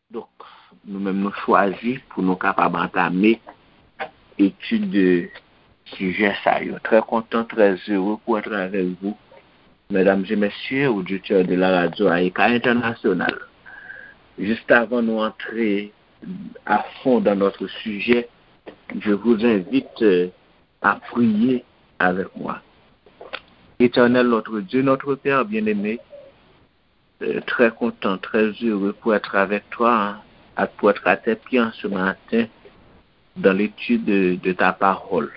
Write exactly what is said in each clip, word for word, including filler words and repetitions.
Donk, nou menm nou chwazi pou nou kapab antame etid de sijè sa yo. Trè kontan, trè zere pou èt avèk vou, medam e mesye, oditè de la radyo Ayika Entènasyonal. Jis avan nou antre à fond dans notre sujet, je vous invite euh, à prier avec moi. Éternel notre Dieu, notre Père bien-aimé, euh, très content, très heureux pour être avec toi, hein, et pour être à tes pieds en ce matin dans l'étude de, de ta parole.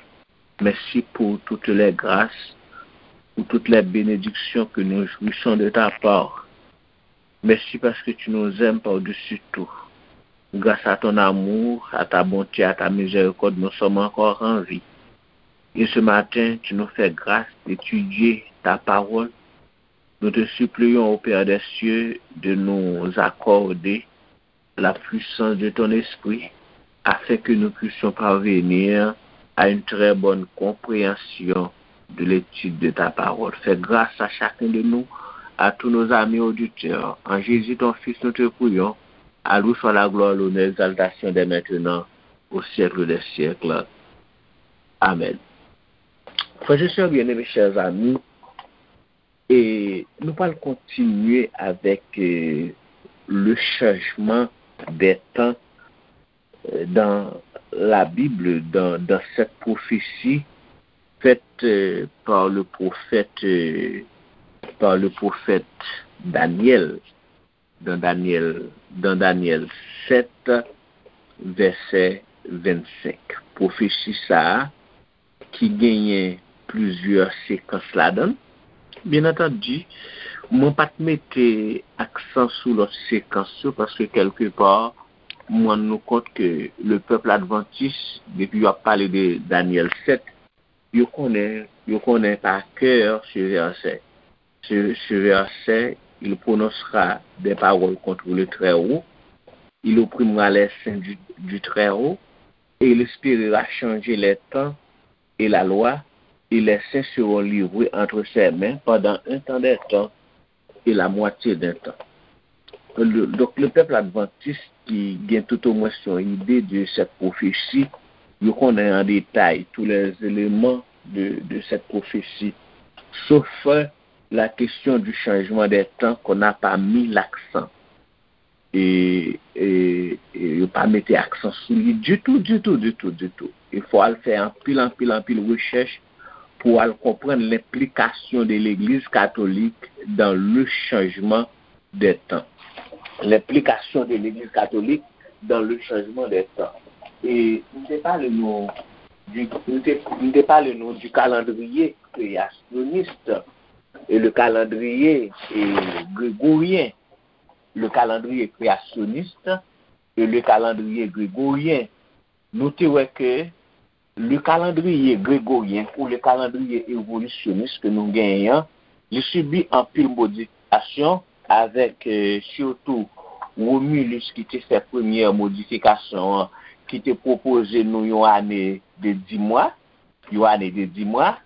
Merci pour toutes les grâces, pour toutes les bénédictions que nous jouissons de ta part. Merci parce que tu nous aimes par-dessus tout. Grâce à ton amour, à ta bonté, à ta miséricorde, nous sommes encore en vie. Et ce matin, tu nous fais grâce d'étudier ta parole. Nous te supplions, au Père des cieux, de nous accorder la puissance de ton esprit afin que nous puissions parvenir à une très bonne compréhension de l'étude de ta parole. Fais grâce à chacun de nous, à tous nos amis auditeurs. En Jésus, ton Fils, nous te prions. À lui soit la gloire, l'honneur, l'exaltation dès maintenant, au siècle des siècles. Amen. Frères et sœurs bien-aimés, chers amis, et nous allons continuer avec euh, le changement des temps euh, dans la Bible, dans, dans cette prophétie faite euh, par le prophète, euh, par le prophète Daniel, dans Daniel, dans Daniel sept, verset vingt-cinq. Prophétie ça, ki genyen plizyè sekans ladan l. Byen antandi, mwen pa t mete aksan sou lòt sekans yo paske kèlkepa mwen rann nou kont ke le pèp advantis, depi yo ap pale de Danyèl sèt, yo konnen, yo konnen pa kè se vèsè. Ce, ce verset, il prononcera des paroles contre le Très-Haut, il opprimera les saints du, du Très-Haut, et il espérera changer les temps et la loi, et les saints seront livrés entre ses mains pendant un temps des temps et la moitié d'un temps. Le- donc, le peuple adventiste qui gagne tout au moins son idée de cette prophétie, yo konnen an detay tous les éléments de, de cette prophétie, sauf la question du changement des temps qu'on n'a pas mis l'accent. E, e, e yo pa mete aksan sou li ditou, ditou, ditou, ditou. E fò al fè anpil, anpil, anpil rechèch pou al konprann lenplikasyon de legliz katolik dans le changement des temps. Lenplikasyon de legliz katolik dans le changement des temps. E m te pale nou di, m te, m te pale nou du calendrier créationniste et le calendrier eh, grégorien. Le calendrier créationniste et le calendrier grégorien. Nou te wè ke le calendrier grégorien ou le calendrier évolutionniste ke nou genyen an, li sibi anpil modifikasyon avèk eh, sitou Romulus ki te fè premyè modifikasyon an, ki te pwopoze nou yon ane de dis mwa, yon ane de dis mwa.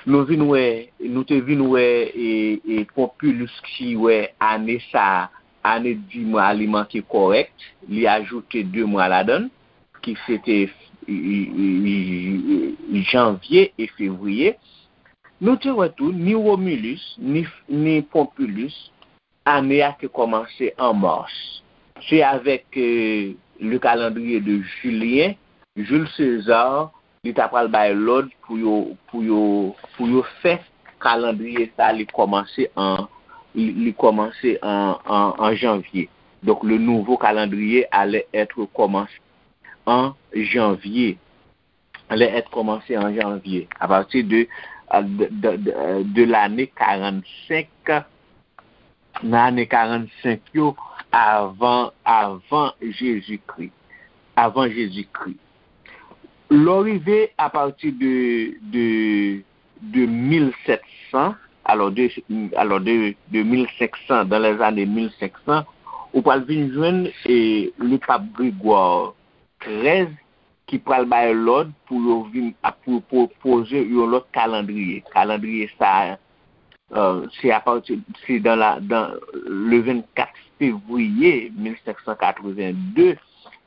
Nou vin wè, nou te vin wè e, e Pompilus ki wè ane sa, ane dis mwa li manke kòrèk, li ajoute de mwa ladan l, ki se te e, e, e, janvye e fevriye. Nou te wè tou, ni Romulus, ni, ni Pompilus, ane a te kòmanse an mas. Se avèk eh, le calendrier de Julien, Jules César, li ta pral bay lòd pou yo, pou yo, pou yo fè kalandriye sa li kòmanse an, li, li kòmanse an, an, an janvye. Donc, le nouveau calendrier allait être commencé en janvier. Allait être commencé en janvier. À partir de, de, de, de, de l'année quarante-cinq, nan ane karannsenk yo, avan, avan Jezikri. Avan Jezikri. Lè w rive apati de, de, de mil sèt san, alò de, alò de, de mil senk san, dans les années mil senk san, ou pral vin jwenn e, le pape Grégoire trèz ki pral bay lòd pou yo vin ap pou pwopoze yon lòt kalandriye. Kalandriye sa a, Euh, se apati, se dans la, dans le vingt-quatre février mille cinq cent quatre-vingt-deux,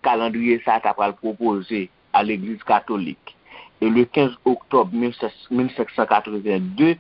kalandriye sa ta pral pwopoze a Legliz Katolik. E le quinze octobre mille cinq cent quatre-vingt-deux,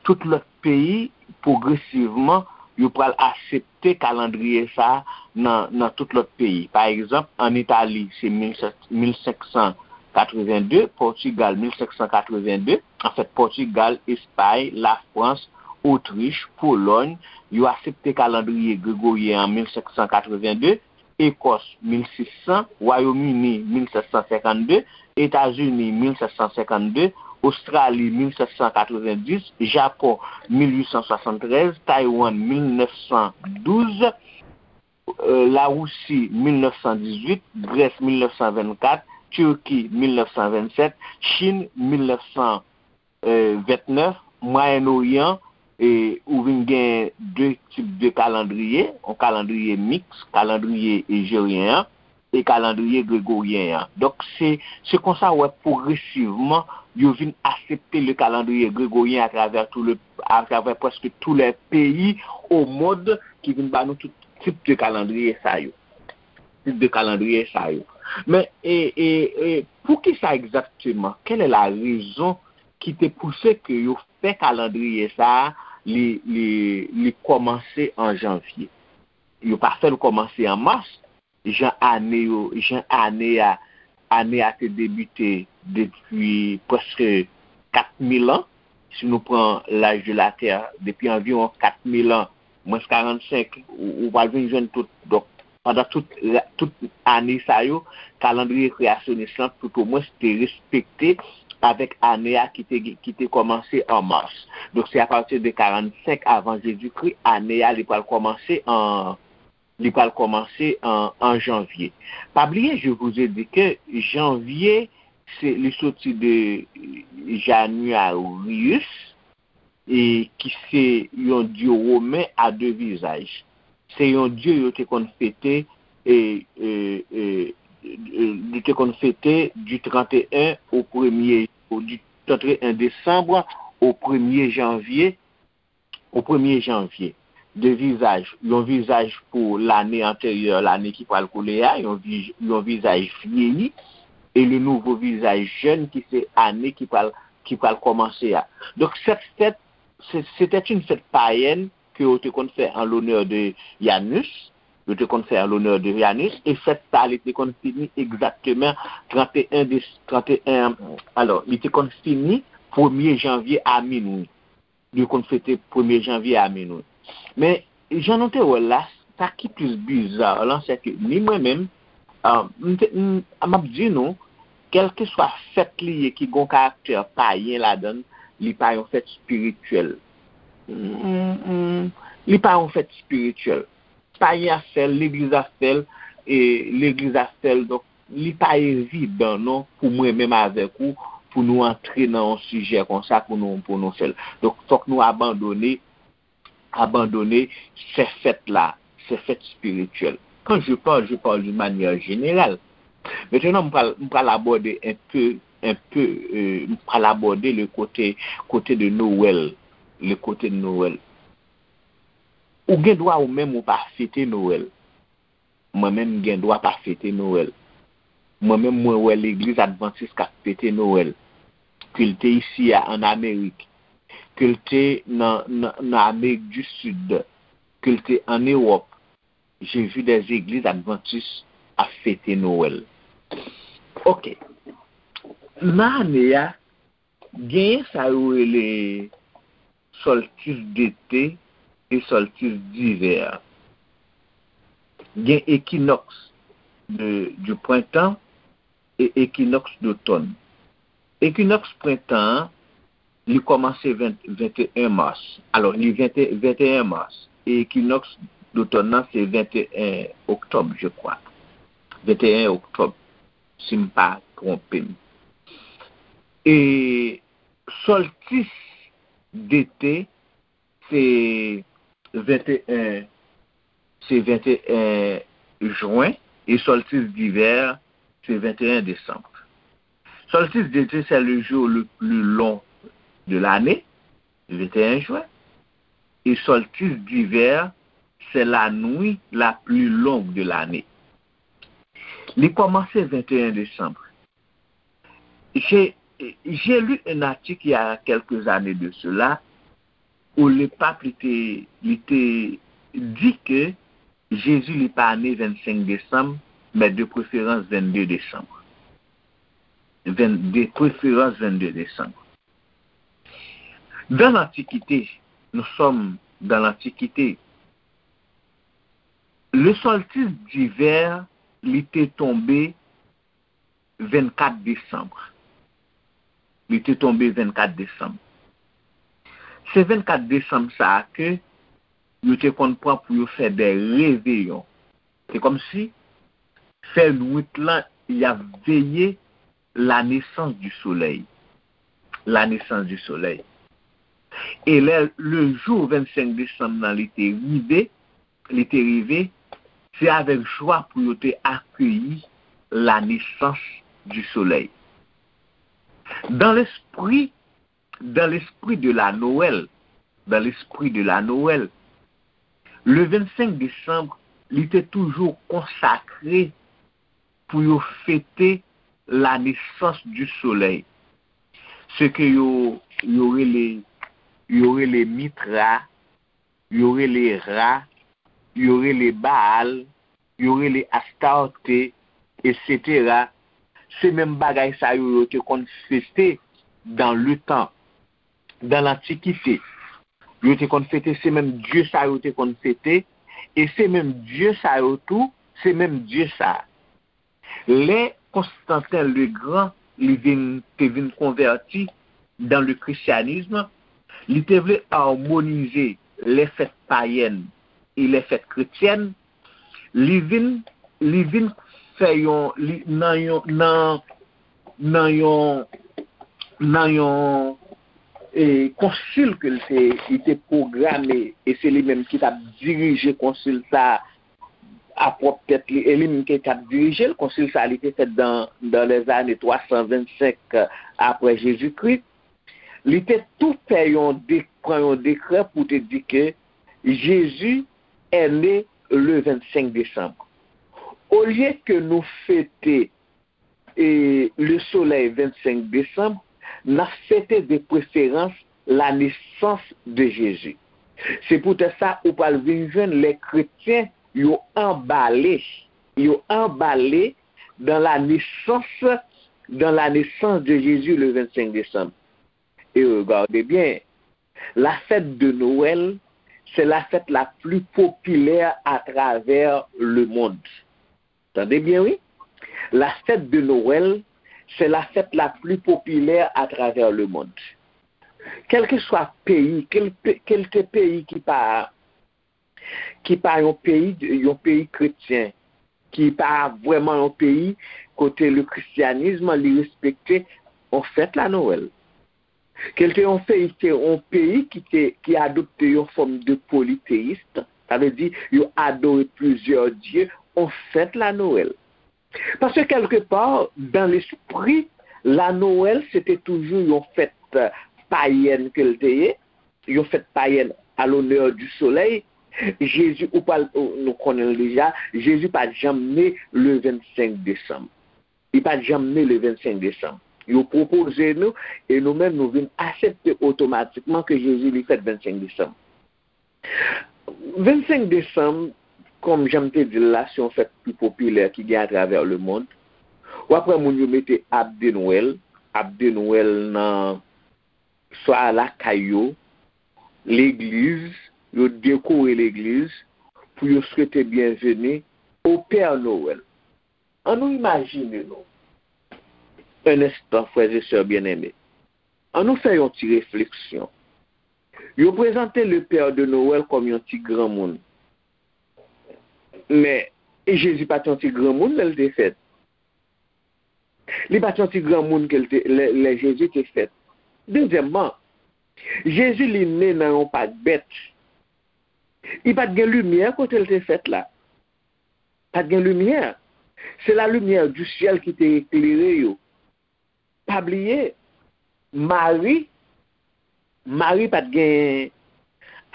tout lòt peyi, pwogresivman, yo pral aksepte kalandriye sa nan, nan tout lòt peyi. Pa egzanp, ann Itali, se mil cinq cent quatre-vingt-deux, Pòtigal, mil cinq cent quatre-vingt-deux, anfèt, Pòtigal, Espay, Lafrans, Otrich, Polòy, yo aksepte kalandriye gregoryen an mil cinq cent quatre-vingt-deux, Ekòs, mil sis san, Wayòm Ini, mil sèt san senkannde, Etazini, mil sèt san senkannde, Ostrali, mil sèt san katrevenndis, Japon, mil uit san swasanntrèz, Taiwan, mil nèf san douz, euh, Larisi, mil nèf san dizuit, Grès, mil nèf san vennkat, Tiki, mil nèf san vennsèt, Chin, mil nèf san vennèf, Mwayen Oryan, e ou vin gen de tip de kalandriye, yon kalandriye miks, kalandriye ejeryen an, e kalandriye gregoryen an. Donk, se, se konsa w wè pwogresivman, yo vin aksepte le calendrier grégorien à travers tout le, à travers presque tous les pays au monde ki vin ba nou tout tip de kalandriye sa yo. Tip de kalandriye sa yo. Men, e, e, e, poukisa egzakteman? Quelle est la raison ki te pouse ke yo fè kalandriye sa a, li, li, li kòmanse an janvye? Yo pa fè l kòmanse an mas, jan ane yo, jan ane a, ane a te debite depi prèske kat mil an. Si nou pran l'âge de la Terre, depi anviwon kat mil an, mwens karannsenk, ou, ou pral vin jwenn tout. Donk, pandan tout, tout ane sa yo, kalandriye kreyasyonis lan, toutomwens, te respekte avèk ane a ki te, ki te kòmanse an mas. Donk, se apati de karannsenk avan Jezikri, ane a, li pral kòmanse an, li pral kòmanse an, an janvye. Pa bliye, je vous ai dit que janvye, se, li soti de Januarius, e ki se yon dye women a de vizaj. Se yon dye yo te konn fete, e, e, e, e, yo te konn fete du trente et un au premier, au, du trente et un décembre au premier janvier, au premier janvier. De vizaj, yon vizaj pou lane anteryè, lane ki pral koule a, yon, vi- yon vizaj vyeyi, e le nouvo vizaj jèn ki se ane ki pral, ki pral kòmanse a. Donk, cette fête, se- c'était une fête païenne que yo te konn fè en l'honneur de Janus, yo te konn fè en l'honneur de Janus, e fèt sa, li te konn fini egzakteman trente et un de, trente et un, alò, li te konn fini premye janvye a minwi. Li konn fete premye janvye a minwi. Men, jan nou te wè l la, sa ki plis biza lan, se ke ni mwen menm, ah, m te- m- m ap di nou, kèlkeswa fèt li ye ki gon karaktè payen ladan l, li pa yon fèt espirityèl. Mm, mm, li pa yon fèt espirityèl. Payen ap fè l, legliz ap fè l, e legliz ap fè l. Donk, li pa evidan non pou mwen menm avèk ou, pou nou antre nan yon sijè konsa, pou nou, pou nou fè l. Donk, fòk nou abandone, abandone se fèt la, se fèt espirityèl. Quand je parle, je parle d'une manière générale. Maintenant, m pral, m pral abòde un peu, un peu, euh, m pral abòde le côté, côté de Noël, le côté de Noël. Ou gen dwa ou menm ou pa fete Noël. Mwen menm m gen dwa pa fete Noël. Mwen menm mwen wè legliz advantis k ap fete Noël. Ke l te isi a an Amerik, ke l te nan, nan, nan Amerik di Sid, ke l te an Ewòp. J'ai vu des églises adventistes ap fete Noël. Ok. Nan ane a, genyen sa yo rele solstice d'été e solstice d'hiver. Gen équinoxe de, du printemps e équinoxe d'automne. Équinoxe prentan an, li kòmanse ven, venteyen mas. Alò, li vente, venteyen mas. E équinoxe d'automne nan, se venteyen oktòb, je crois. Venteyen oktòb, si m pa twonpe m. E solstice d'été, se venteyen, se venteyen jen, e solstice d'hiver, se venteyen desanm. Solstice d'été, c'est le jour le plus long de l'année, venteyen jen. Et solstice d'hiver, c'est la nuit la plus longue de l'année. Li kòmanse venteyen desanm. J'ai, j'ai lu un article il y a quelques années de cela où le pape li te, li te di ke Jezi li pa ne vennsenk desanm, men de preferans vennde desanm. Venn, de preferans vennde desanm. Dans l'Antiquité, nous sommes dans l'Antiquité. Le solstice d'hiver li te tonbe vennkat desanm. Li te tonbe vennkat desanm. Se vennkat desanm sa a ke yo te konn pran pou yo fè de reveyon. Se kòmsi fè nwit lan y ap veye la naissance du soleil. La naissance du soleil. E lè le jou vennsenk desanm nan li te rive, li te rive, se avèk jwa pou yo te akeyi la naissance du soleil. Dans l'esprit, dans l'esprit de la Noël, dans l'esprit de la Noël, le vennsenk desanm, li te toujou konsakre pou yo fete la naissance du soleil. Se ke yo, yo rele, yo rele Mitra, yo rele Ra, yo rele Baal, yo rele Astarte, et cetera. Se menm bagay sa yo yo te konn fete dans le temps, dans l'Antiquité. Yo te konn fete, se menm dye sa yo te konn fete, e se menm dye sa yo tou, se menm dye sa. Lè Konstantin le Grand li vin, te vin konvèti dans le christianisme, li te vle amonize lè fèt payèn e lè fèt kretyèn, li vin, li vin fè yon, li, nan yon, nan, nan yon, nan yon, e, konsil ke l te, li te pwograme, e se li menm ki t ap dirije konsil sa a, a pwòp tèt li, e li menm ki t ap dirije l. Konsil sa a, li te fèt dans, dans les années trois cent vingt-cinq après Jésus-Christ. Li te tou fè yon de, pran yon dekrè pou te di ke Jezi est né le vennsenk desanm. Olye ke nou fete e le soleil vennsenk desanm, n ap fete de preferans la naissance de Jésus. Se poutèt sa ou pral vin jwenn lè kretyen yo anbale, yo anbale dans la naissance, dans la naissance de Jésus le vennsenk desanm. Et regardez bien, la fête de Noël, c'est la fête la plus populaire à travers le monde. Tande byen, wi. La fête de Noël, c'est la fête la plus populaire à travers le monde. Kèlkeswa peyi, kèl, kèlte peyi ki pa, ki pa yon peyi, yon peyi kretyen, ki pa vrèman yon peyi kote le christianisme li respekte, on fèt la Noël. Kèlte yon peyi, se yon peyi ki te, ki adopte yon fòm de polythéiste, sa vle di yo adore plizyè dye, on fèt la Noël. Paske kèlkepa, dans l'esprit, la Noël se te toujou yon fèt payèn ke l te ye, yon fèt payèn à l'honneur du soleil. Jezi, ou pral, nou konnen l deja, Jezi pa t janm ne le vennsenk desanm. Li pa t janm ne le vennsenk desanm. Yo pwopoze nou, e nou menm nou vin aksepte otomatikman ke Jezi li fèt vennsenk desanm. Vennsenk desanm, kòm jan m te di l la, se yon fèt ki popilè ki gen atravè lemonn. W ap wè moun yo mete ab de Nwèl, ab de Nwèl nan swa lakay yo, legliz, yo dekore legliz pou yo swete byenveni au Père Noël. Annou imajine nou, un instant, frères et sœurs bien-aimés. Annou fè yon ti refleksyon. Yo prezante le Père de Noël kòm yon ti granmoun. Men, Jezi pa t yon ti granmoun lè l te fèt. Li pa t yon ti granmoun ke l te, lè, lè Jezi te fèt. Dezyèmman, Jezi li ne nan yon pak bèt. Li pa t gen limyè kote l te fèt la. Pa t gen limyè. Se la lumière du ciel ki te eklere yo. Pa bliye, Mari, Mari pa t gen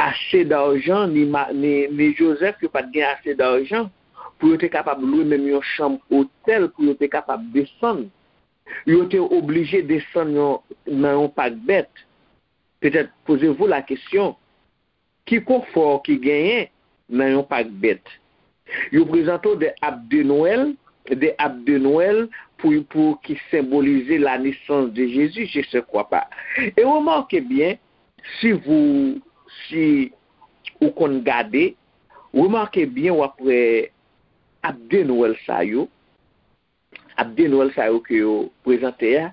ase dajan, ni, ni, ni Jozèf, yo pa t gen ase dajan pou yo te kapab lwe menm yon chanm otèl pou yo te kapab desann. Yo te oblije desann yon, nan yon pak bèt. Petèt, posez-vous la question, ki konfò ki genyen nan yon pak bèt? Yo prezante w de ab de Nwèl, de ab de Nwèl pou, pou ki senbolize la nesans de Jezi, je se kwa pa. E remake byen, si vous, si ou konn gade, remake byen w ap wè ab de Nwèl sa yo, ab de Nwèl sa yo ke yo prezante a,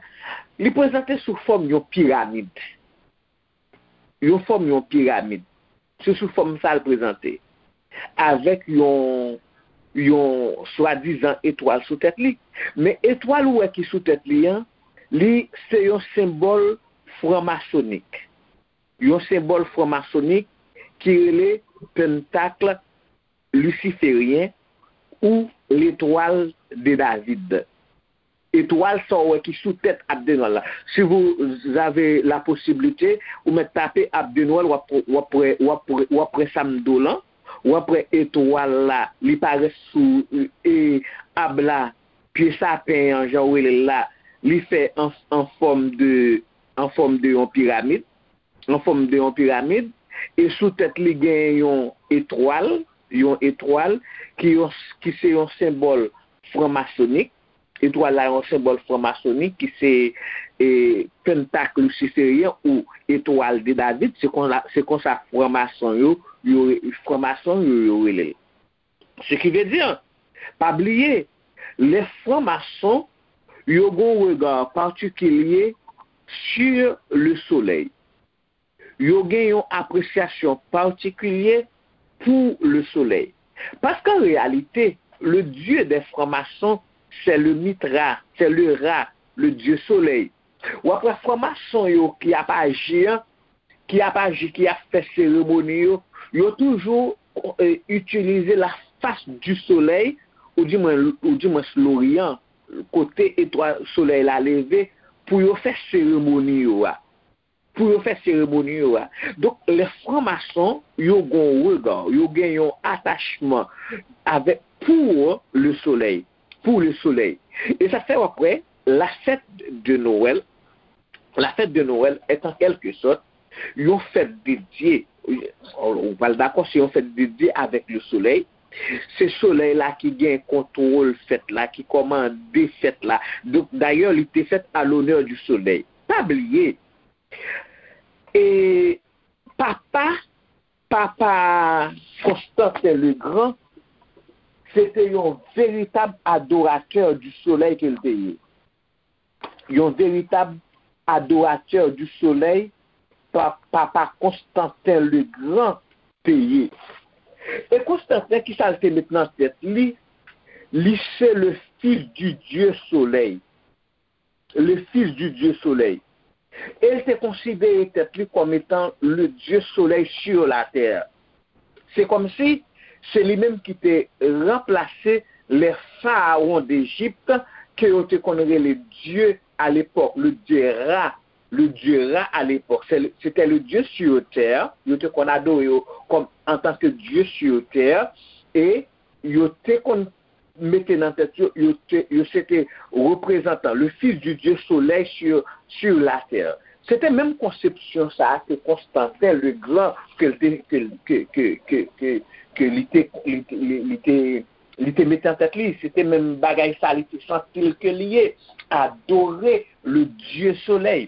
li prezante sou fòm yon piramid. Yon fòm yon piramid. Se sou fòm sa l prezante. Avèk yon, yon swadizan etwal sou tèt li. Men etwal ou wè ki sou tèt li an, li se yon senbòl franmasonik. Yon senbòl franmasonik ki rele pentakl lisiferyen ou l'étoile de David. Etwal sa w wè ki sou tèt ab de Nwèl la. Si vous avez la possibilité, ou mèt tape ab de Nwèl, w ap, w ap wè, w ap wè, w ap wè sa m di w lan. W ap wè etwal la, li parèt sou, e, ab la, pye sapen an, jan w rele l la, li fè an, an fòm de, an fòm de yon piramid, an fòm de yon piramid, e sou tèt li gen yon etwal, yon etwal ki yon, ki se yon senbòl franmasonik. Etwal la yon senbòl franmasonik ki se, e, pentak lisiferyen ou etwal de David, se konsa, se konsa franmason yo, yo, franmason yo, yo rele l. Ce qui veut dire, pa bliye, les francs-maçons, yo gen yon regard patikilye sur le soleil. Yo gen yon apresyasyon patikilye pou le soleil. Parce qu'en réalité, le dieu des francs-maçons, c'est le Mithra, c'est le Ra, le dieu soleil. W ap wè franmason yo ki ap aji an, ki ap aji, ki ap fè seremoni yo, yo toujou, e, itilize la face du soleil, ou di mwen, ou di mwen Loryan, kote etwal solèy la leve, pou yo fè seremoni yo a. Pou yo fè seremoni yo a. Donk, les francs-maçons, yo gen yon regard, yo gen yon atachman avèk, pour le soleil, pour le soleil. E sa fè w ap wè, la fête de Noël, la fête de Noël est en quelque sorte yon fèt dedye, ou pral dakò, se yon fèt dedye avèk le soleil. Se solèy la ki gen kontwòl fèt la, ki kòmande fèt la. Donk, dayè, li te fèt à l'honneur du soleil. Pa bliye, e papa, papa Konstantin le Gran, se te yon veritab adoratè du soleil ke l te ye. Yon veritab adoratè du soleil, pa, papa Konstantin le Gran te ye. E Konstantin, ki sa l te met nan tèt li? Li se le fils du dieu soleil. Le fils du dieu soleil. E l te konsidere tèt li kòm etan le dieu soleil sur la terre. Se kòmsi se li menm ki te ranplase les pharaons d'Égypte, ke yo te konn rele dye à l'époque, le dieu Ra, le dieu Ra à l'époque. Se, se te le dieu sur terre, yo te konn adore yo kòm, en tant que dieu sur terre, e yo te konn mete nan tèt yo, yo te, yo se te reprezantan, le fils du dieu soleil sur, sur la terre. Se te menm konsepsyon sa a ke Konstantin le Gran, ke l te, ke, ke, ke, ke, ke, ke li te, li te, li, li te, li te mete nan tèt li. Se te menm bagay sa li te santi l ke li ye. Adore le dieu soleil.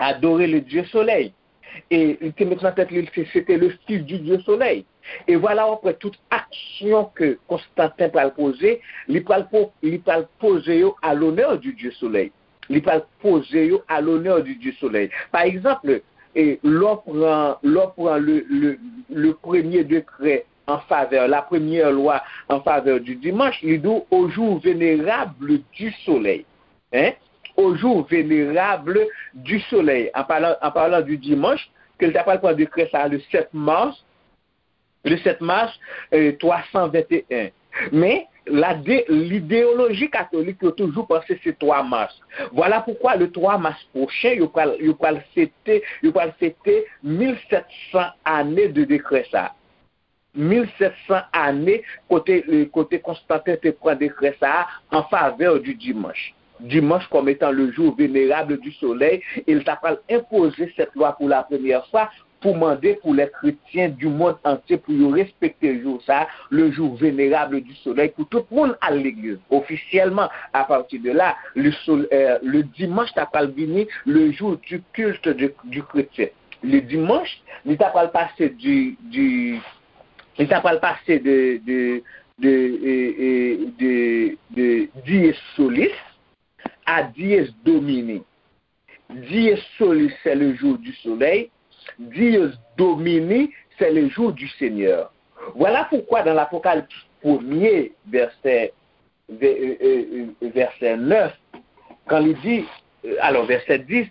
Adore le dieu soleil. E li te met nan tèt li, se, se te le fils du dieu soleil. E vwala, w ap wè tout aksyon ke Konstantin pral poze, li pral po-, li pral poze yo à l'honneur du dieu soleil. Li pral poze yo à l'honneur du dieu soleil. Pa egzanp, e, lè w pran, lè w pran le, le, le premier décret en faveur, la première loi en faveur du dimanche, li di w au jour vénérable du soleil. Hein? Au jour vénérable du soleil. En parlant, en parlant du dimanche, ke l ta pral pran dekrè sa le sept mars, le sept mars, euh, trois cent vingt et un. Men, La de, lidéologie catholique, yo toujou panse se twa mas. Voilà pourquoi le trois mars prochain, yo pral, yo pral fete, yo pral fete mil sèt san ane de dekrè sa. Mil sèt san ane kote, kote Konstanten te pran dekrè sa a en faveur du dimanche. Dimanche comme étant le jour vénérable du soleil, e l ta pral enpoze cette loi pour la première fois pou mande pou les chrétiens du monde entier pou yo respekte jou sa, le jour vénérable du soleil, pou tout moun al legliz. Ofisyèlman, à partir de là, le, sol, euh, le dimanche ta pral vini le jour du culte de, du chrétien. Le dimanche, li ta pral pase du, du, li ta pral pase de, de, de, euh, euh, de, de dies solis à dies domini. Dies solis, c'est le jour du soleil. Dies domini, c'est le jour du Seigneur. Voilà pourquoi dans l'Apocalypse premier, verset, ve- euh, euh, euh, verset neuf, quand il dit, euh, alors verset dix,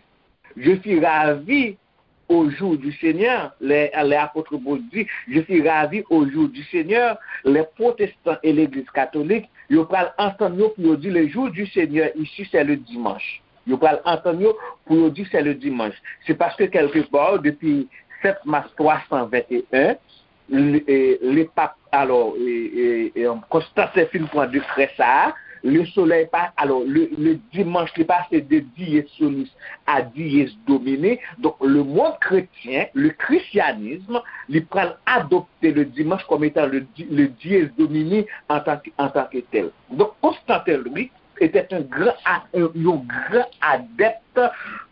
je fus ravi au jour du Seigneur, les, les apôtres Paul dit, je fus ravi au jour du Seigneur, les protestants et l'église catholique, yo pral antann yo pou yo di le jour du Seigneur ici, c'est le dimanche. Yo pral antann yo pou yo di c'est le dimanche. C'est parce que quelque part, depuis sept mars trois cent vingt et un, le, euh, le pape, alors, euh, euh, euh, Constantin fin pran dekrè sa a, le soleil pa, alors, le, le dimanche, li pase de dies solis à dies domini. Donc, le monde chrétien, le christianisme, li pral adopte le dimanche comme étant le, di- le dies domini en tant que, en tant que tel. Donc, Constantin, lui, était un grand, a- un, un grand adepte,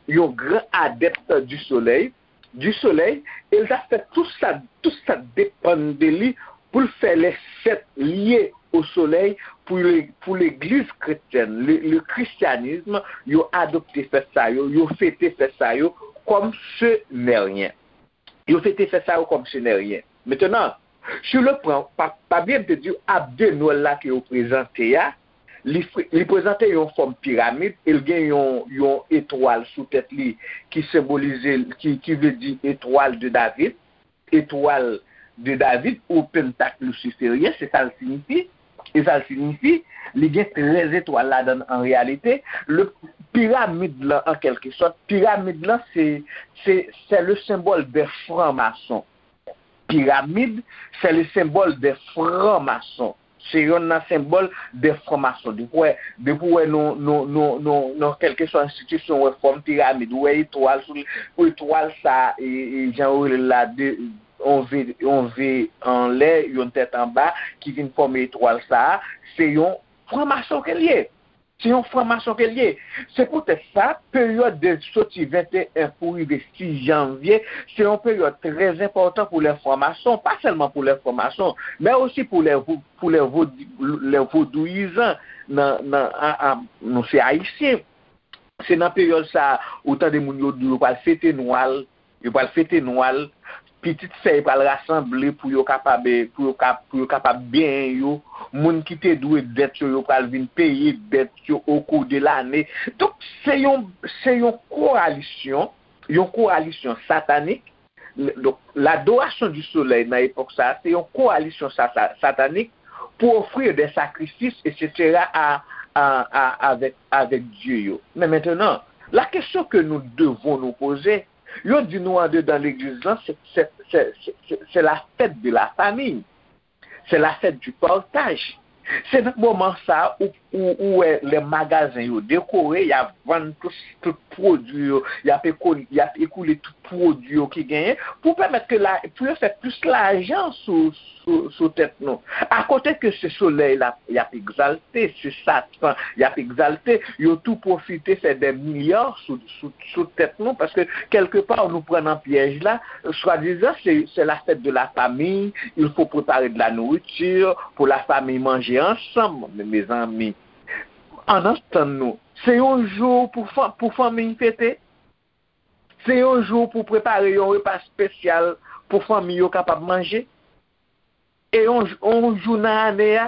un grand adepte du soleil, du soleil, e l ta fè tout sa, tout sa depann de li pou l fè les sept liés au soleil pour, le, pour l'église chrétienne, le, le christianisme, yo adopte fèt sa yo, yo fete fèt sa yo comme ce n'est rien. Yo fete fèt sa yo comme ce n'est rien. Maintenant, sur le plan, pa, pa bliye m te di w, abde Nwèl la ke yo prezante a, li, fre- li prezante yon fòm piramid, e l gen yon, yon etwal sou tèt li ki senbolize, ki, ki vle di etwal de David, etwal de David ou pentak lisiferyen, se sa l siyifi. E sa l siyifi, li gen trèz etwal ladan l an reyalite. Le piramid lan, an kèlke sòt, piramid lan, se, se, c'est le symbole des francs-maçons. Piramid, c'est le symbole des francs-maçons. Se yonn nan senbòl de franmason. Depi w wè, depi w wè nou, nou, nou, nou, nou kèlkeswa enstitisyon, w wè fòm piramid, w wè etwal sou li, etwal sa, e, e, jan yo rele l la, de, yon V, yon V anlè, yon tèt anba, ki vin fòme etwal sa a, se yon franmason ke l ye. Se yon franmason ke l ye. Se poutèt sa, peryòd de soti venteyen pou rive sis janvye, se yon peryòd trè enpòtan pou lè franmason, pa sèlman pou lè franmason, men osi pou lè, pou lè, vodi- lè vodouyizan nan, nan, a, a, nou se ayisyen. Se nan peryòd sa a, ou tande moun yo di yo pral fete Nwal, yo pral fete Nwal, pitit sè yo pral rasanble pou yo kapab, pou yo ka, pou yo kapab benyen yo. Moun ki te dwe dèt yo, yo pral vin peye dèt yo au cours de l'année. Donk, se yon, se yon koalisyon, yon koalisyon satanik. Donk, l'adoration du soleil nan epòk sa a, se yon koalisyon sa- sa- satanik pour offrir des sacrifices, et cetera, à, à, à, avec, avec Dieu yo. Men mentenan, la question que nous devons nous poser, yo di nou andedan legliz lan, se, se, se, se, se, se la fête de la famille. Se la fête du partage. Se nan moman sa a ou, ou, ou wè lè magazen yo dekore, y ap vann tout, tout pwodui yo, y ap, eko, y ap ekoule tout pwodui yo ki genyen pou pèmèt ke la, pou yo fè plis lajan sou, sou, sou tèt nou. Akote ke se solèy la y ap egzalte, se Satan y ap egzalte, yo tou pwofite fè dè milya sou, sou, sou tèt nou, paske kèlkepa nou pran nan pyèj la, swadizan se, c'est la fête de la famille, il faut préparer de la nourriture pour la famille manger ensemble. Men mezanmi, ann antann nou, se yon jou pou, fan, pou fanmi fete. Se yon jou pou prepare yon repa espesyal pou fanmi yo kapab manje. E yon, yon jou nan ane a,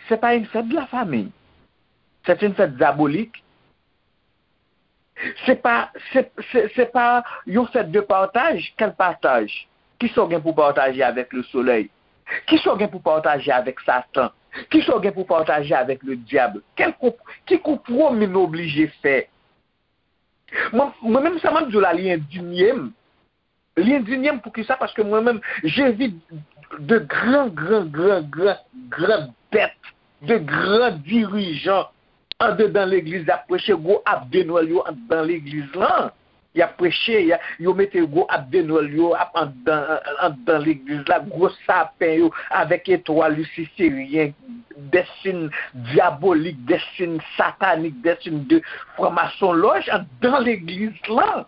c'est pas une fête de la famille. C'est une fête diabolique. Se pa, se, se, se pa yon fèt de pataj. Quel partage? Kisa w gen pou pataje avèk le soleil? Kisa w gen pou pataje avèk Satan? Kisa w gen pou pataje avèk le dyab? Kèl konp- ki konpwomi nou oblije fè? Mwen, mwen menm, sa m ap di w la, li endinye m. Li endinye m poukisa? Paske mwen menm, je vis de gran, gran, gran, gran, gran dèt, de gran dirijan andedan legliz la ap preche, gwo ap de Nwèl yo andedan legliz lan. Y ap preche, y a- yo mete gwo ap de Nwèl yo ap andedan, andedan legliz la, gwo sapen yo avèk etwal lisiferyen, de siy dyabolik, de siy satanik, de siy de franmasonlòj andedan legliz lan.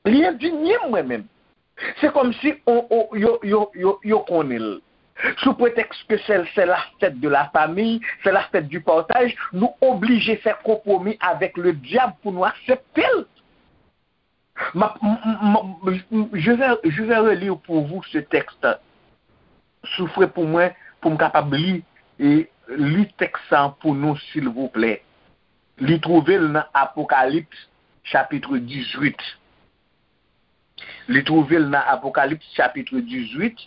Li endinye m, mwen menm. Se kòmsi on, on, yo, yo, yo, yo konnen l. Sou pretèks ke se, se la fèt de la famiy, se la fèt du partaj, nou oblije fè konpwomi avèk le dyab pou nou aksepte l. M ap- m- m- m- je vais, je vais relire pour vous ce texte. Soufre pou mwen, pou m kapab li, e li tèks sa pou nou, silvouplè. Li twouve l nan Apokalips, chapit dizuit. Li twouve l nan Apokalips, chapit dizuit,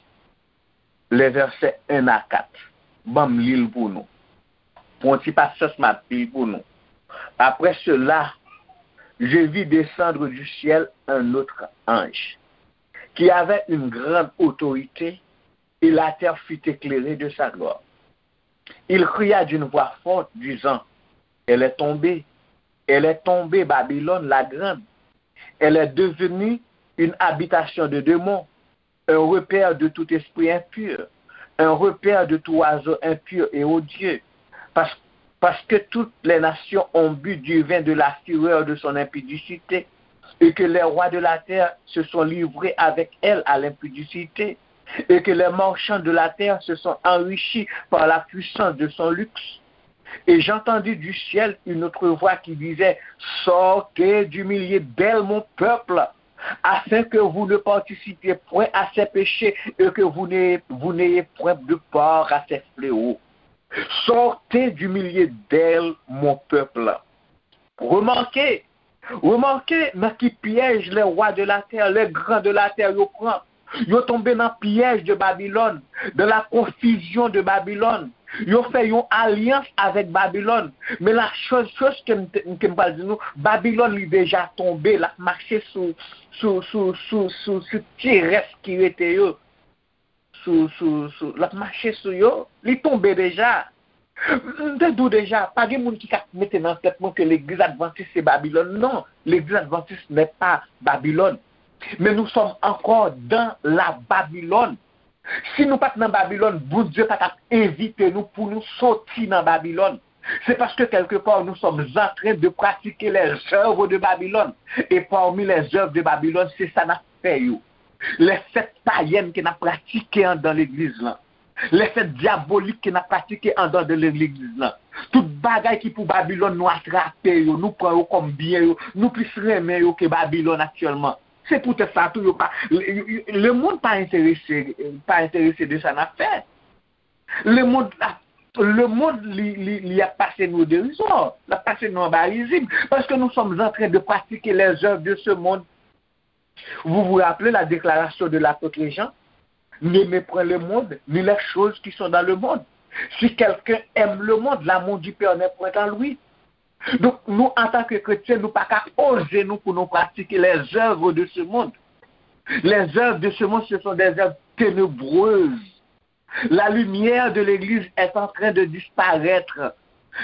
les versets un à quatre. Ban m li l pou nou. Pou yon ti pasyans, m ap li l pou nou. Après cela, je vis descendre du ciel un autre ange, qui avait une grande autorité, et la terre fut éclairée de sa gloire. Il cria d'une voix forte, disant, elle est tombée, elle est tombée, Babylone la grande. Elle est devenue une habitation de démons, un repère de tout esprit impur, un repère de tout oiseau impur et odieux, parce, parce que toutes les nations ont bu du vin de la fureur de son impudicité, et que les rois de la terre se sont livrés avec elle à l'impudicité, et que les marchands de la terre se sont enrichis par la puissance de son luxe. Et j'entendis du ciel une autre voix qui disait, sortez du milieu d'elle, mon peuple, afin que vous ne participiez point à ses péchés et que vous n'ayez, vous n'ayez point de part à ses fléaux. Sortez du milieu d'elle, mon peuple. Remarquez, remarquez dans qui piège les rois de la terre, les grands de la terre, yo pran. Yo tonbe nan pyèj de Babylone, dans la confusion de Babylone. Yo fè yon alyans avèk Babylone. Men la choz, choz ke m, ke m pral di nou, Babylone li deja tonbe, l ap mache sou, sou, sou, sou, sou, sou ti rès ki rete yo. Sou, sou, sou, l ap mache sou yo, li tonbe deja. M te di w deja, pa gen moun ki ka mete nan tèt mwen ke legliz advantis se Babylone. Non, legliz advantis n'est pas Babylone. Mais nous sommes encore dans la Babylone. Si nou pa t nan Babylone, Bondye pa t ap envite nou pou nou soti nan Babylone. C'est parce que quelque part nous sommes en train de pratiquer les œuvres de Babylone. Et parmi les œuvres de Babylone, se sa n ap fè yo. Les fêtes païennes ke n ap pratike anndan legliz lan. Les fêtes diaboliques ke n ap pratike anndan de legliz lan. Tout bagay ki pou Babylone, nou atrape yo, nou pran yo kòm byen yo, nou plis renmen yo ke Babylone aktyèlman. Se poutèt sa tou yo pa, le, le monde pa enterese, pa enterese de sa n ap fè. Le monde ap, le monde li, li, li ap pase nou derizò, l ap pase nou anba rizib, paske nous sommes en train de pratiquer les œuvres de ce monde. Vous vous rappelez la déclaration de l'apôtre Jean? N'aimez point le monde, ni les choses qui sont dans le monde. Si quelqu'un aime le monde, l'amour du Père n'est point en lui. Donk, nou, antanke kretyen, nou pa ka poze nou pou nou pratike les œuvres de ce monde. Les œuvres de ce monde, ce sont des œuvres ténébreuses. La lumière de l'Église est en train de disparaître.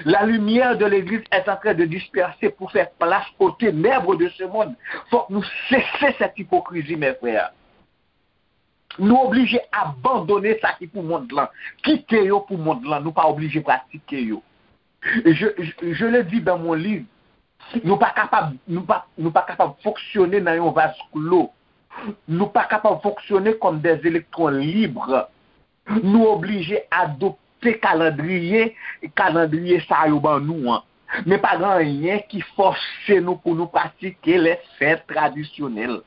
La lumière de l'Église est en train de disperser pour faire place aux ténèbres de ce monde. Fòk nou sese cette hypocrisie, mes frères. Nou oblije abandone sa ki pou mond lan. Kite yo pou mond lan. Nou pa oblije pratike yo. Je, je, je le dis dans mon livre, nou pa kapab, nou pa, nou pa kapab fonksyone nan yon vaz klo. Nou pa kapab fonksyone kòm des électrons libres. Nou oblije adopte kalandriye, kalandriye sa yo ban nou an. Men pa gen anyen ki fòse nou pou nou pratike les fêtes traditionnelles.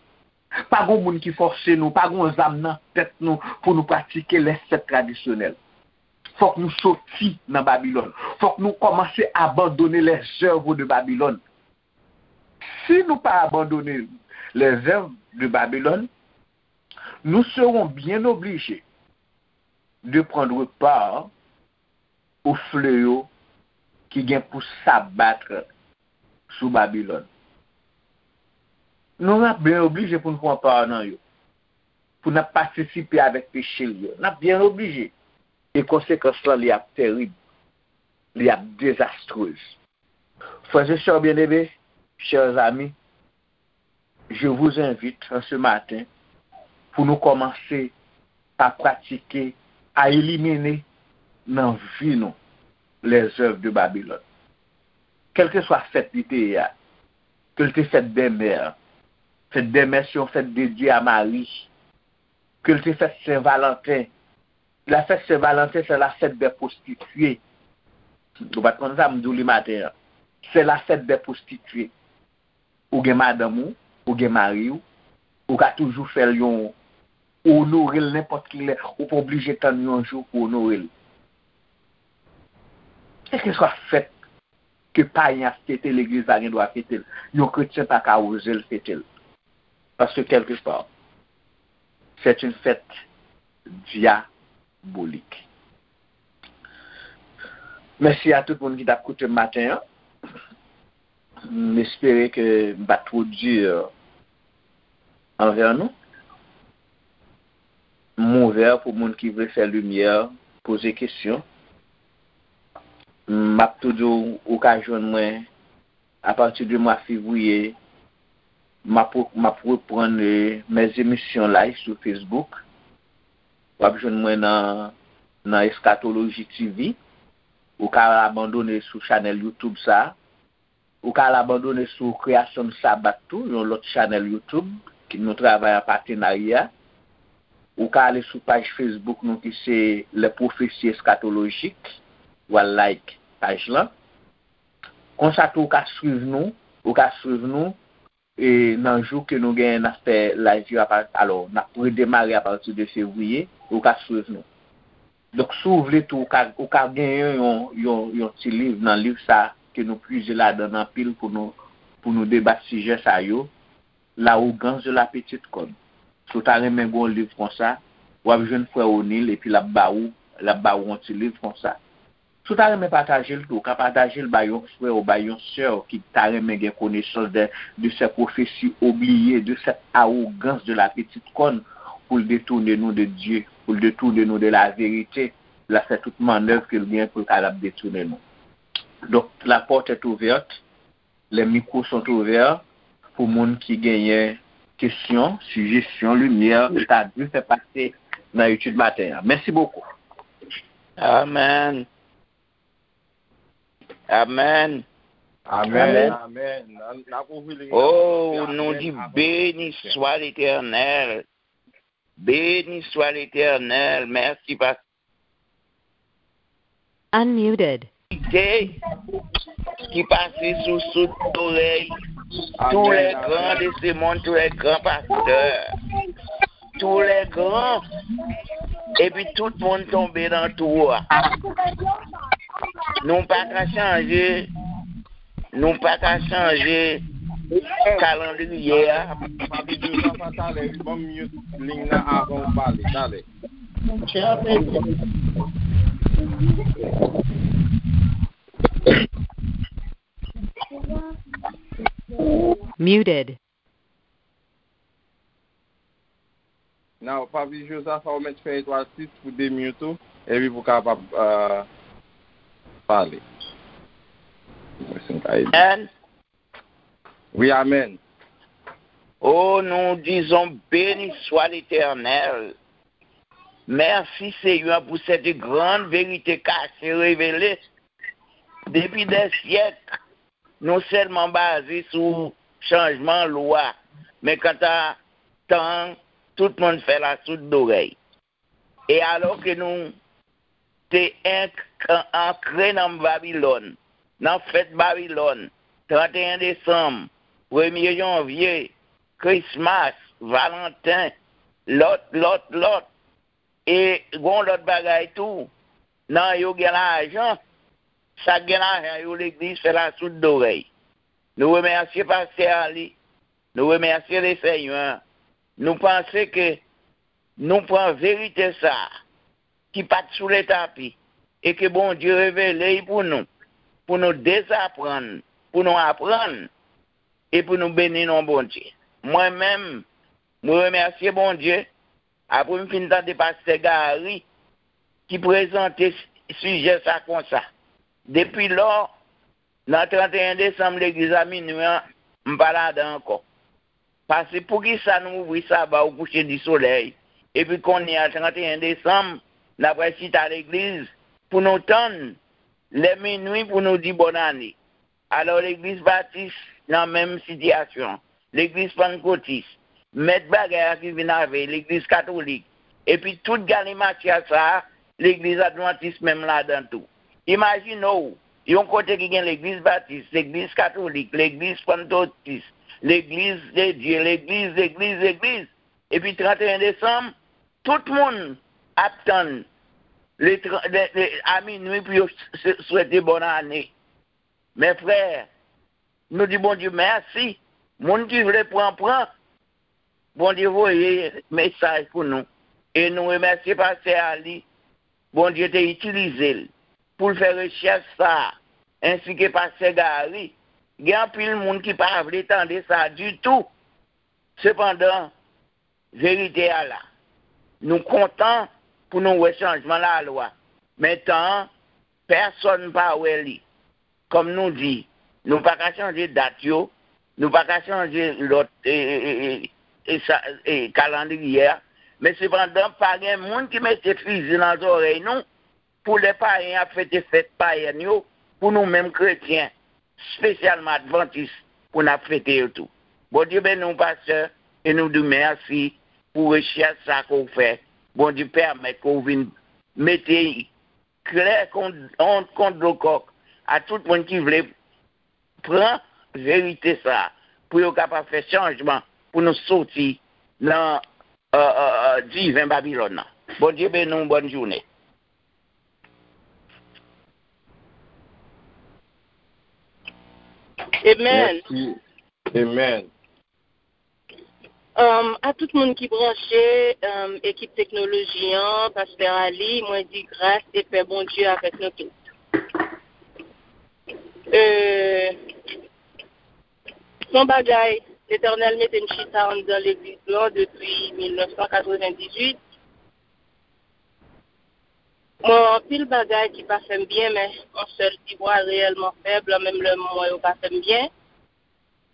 Pa gen moun ki fòse nou, pa gen zam nan tèt nou pou nou pratike les fêtes traditionnelles. Fòk nou soti nan Babilòn. Fòk nou kòmanse abandone les œuvres de Babylone. Si nou pa abandone les œuvres de Babylone, nous serons bien obligés de prendre part au fléau ki gen pou s'abattre sou Babilòn. Nou ap byen oblije pou n pran pa nan yo, pou n ap patisipe avèk peche l yo. N ap byen oblije. E konsekans lan, li ap tèrib, li ap dezastrez. Frères et sœurs bien-aimés, chers amis, je vous invite en ce matin pour nous commencer à pratiquer, à éliminer nan vi nou les œuvres de Babylone. Kèlkeswa fèt li te ye a, ke l te fèt dè mè, fèt dè mè se yon fèt dedye a Mari, ke l te fèt Sen Valanten, la fèt Sen Valanten se la fèt dè pwostitye. Ou pa t konn sa, m di w li maten an. Se la fèt dè pwostitye. Ou gen madanm ou, ou gen mari w, ou ka toujou fè l yon, ou onore l nenpòt ki lè, ou pa oblije tann yon jou pou onore l. Kèlkeswa fèt ke payen ap fete, legliz la gen dwa fete l. Yon kretyen pa ka oze l fete l. Paske kèlkeswa, c'est une fête diabolique. Mèsi a tout moun ki t ap koute m maten an. M espere ke m pa t twò di anvè nou. M ouvè pou moun ki vle fè limyè, poze kesyon. M ap tou di w, ou ka jwenn mwen apati de mwa fevriye. M ap, m ap reprann, eh, mes émissions live sou Facebook. W ap jwenn mwen nan, nan Eschatologie T V. Ou ka abandone sou chanèl YouTube sa a. Ou ka al abandone sou Kreyasyon Sabat tou, yon lòt chanèl YouTube ki nou travay an patenarya. Ou ka ale sou paj Facebook nou ki se Les Prophéties Eschatologiques. Ou al like paj lan. Konsa tou ou ka swiv nou, ou ka swiv nou, e nan jou ke nou genyen n ap fè live yo apa-, alò, n ap redemare apati de fevriye, ou ka swiv nou. Donk, si w vle tou, ou ka, ou ka genyen yon, yon, yon ti liv nan liv sa ke nou pwize ladan l anpil pou nou, pou nou debat sijè sa yo, L'arrogance de la petite corne. Si w ta renmen gen yon liv konsa, w ap jwenn frè O'Neil epi l ap ba ou, l ap ba ou yon ti liv konsa. Si w ta renmen pataje l tou, ou ka pataje l bay yon frè w, bay yon sè w ki ta renmen gen konesans de, de ces prophéties oubliées, de cette arrogance de la petite corne, pou l detounen nou de Dye, pou l detounen nou de la vérité, l ap fè tout mannèv ke l gen pou l kapab detounen nou. Donk, la porte est ouverte, les micros sont ouverts pou moun ki genyen kesyon, sijesyon, limyè, sa Dye fè pase nan etid maten an. Mèsi bokou. Amèn. Amèn. Amèn. Amèn. Amèn. N ap ouvri limyè. Oh, nou di béni soit l'Éternel. Béni soit l'Éternel. Mèsi, pastè. Unmuted. Ki pase sou soud zorèy tous les grands de ce monde, tous les grands pasteurs, tous les grands, epi tout moun tonbe nan twou a. Nou pa ka chanje Nou pa ka chanje kalandriye a. Papi Jozaf, talè, wi, ban m mute liy nan avan w pale, talè. Muted. Now, Papi Jozaf, ou mèt fè etwal sis pou demute ou, epi pou kapab, euh, pale. Mwen si m ka ede. Amèn. Wi, amèn. Oh, nous disons, béni soit l'Éternel. Mèsi, Senyè, pou cette grande vérité cachée, révélée depuis des siècles. Nou sèlman baze sou chanjman lwa, men kanta tan an, tout moun fè l a soud zorèy. E alò ke nou te enk-, ankre nan Babilòn, nan fèt Babilòn, tranteyen desanm, premye janvye, Krismas, Valanten, lòt, lòt, lòt, E gon lòt bagay tou, nan yo gen lajan, sa k gen lajan yo legliz fè l a soud zorèy. Nou remèsye pastè a li, nou remèsye Lesenyè, nou panse ke nou pran verite sa a, ki pa t sou letapi, e ke Bondye revele l pou nou, pou nou dezaprann, pou nou aprann, e pou nou beni non Bondye. Mwen menm, mwen remèsye Bondye, apre m fin tande pastè Gary ki prezante s- sijè sa konsa. Depi lò, nan trannteyen desanm, legliz a minwi an, m pa ladan ankò. Paske poukisa nou ouvri Saba o kouche di solèy, epi kounye a, trannteyen desanm, n ap al chita legliz pou nou tann lè minwi pou nou di bòn ane? Alò, legliz batis nan menm sitiyasyon, legliz pannkotis, mèt bagay la ki vin avè legliz katolik, epi tout galimatya sa a, legliz advantis menm ladan tou. Imajine w, yon kote ki gen legliz batis, legliz katolik, legliz pannkotis, legliz de Dye, legliz, legliz, legliz, epi trannteyen desanm, tout moun ap tann le, tran- le, le, a minwi pou yo s- s- swete bòn ane. Men frè, nou di Bondye mèsi. Moun ki vle pran, pran. Bondye voye mesaj pou nou. E nou remèsye pastè Ali. Bondye te itilize l pou l fè rechèch sa a, ensi ke pastè Gary. Gen anpil moun ki pa vle tande sa ditou. Sepandan, verite a la. Nou kontan pou nou wè chanjman lalwa. Men tan an, pèsonn pa wè li. Kòm nou di, nou pa ka chanje dat yo, nou pa ka chanje lòt e, e, e, e, e, sa- e, kalandriye a. Men sepandan, pa gen moun ki mete fizi nan zòrèy nou pou lè payen ap fete fèt payèn yo, pou nou menm kretyen, espesyalman advantis, pou n ap fete yo tou. Bondye beni w, pastè, e nou di w mèsi pou rechèch sa ke w fè. Bondye pèmèt ke w vin mete klè kon, yon, kon dlo kòk a tout moun ki vle pran verite sa a, pou yo kapab fè chanjman, pou nou soti nan, euh, euh, euh, diven Babilòn nan. Bondye beni w, bòn jounen. Amen. Mèsi. Amen. Um, a tout moun ki branche, um, ekip teknoloji an, pastè Ali, mwen di gras e pè Bondye avèk nou tout. Euh, se yon bagay, Letènèl mete m chita anndan legliz lan depi mil nèf san katrevendizuit. Mwen wè anpil bagay ki pa fè m byen, men yon sèl ti vwa reyèlman fèb, menm lè m wè yo pa fè m byen.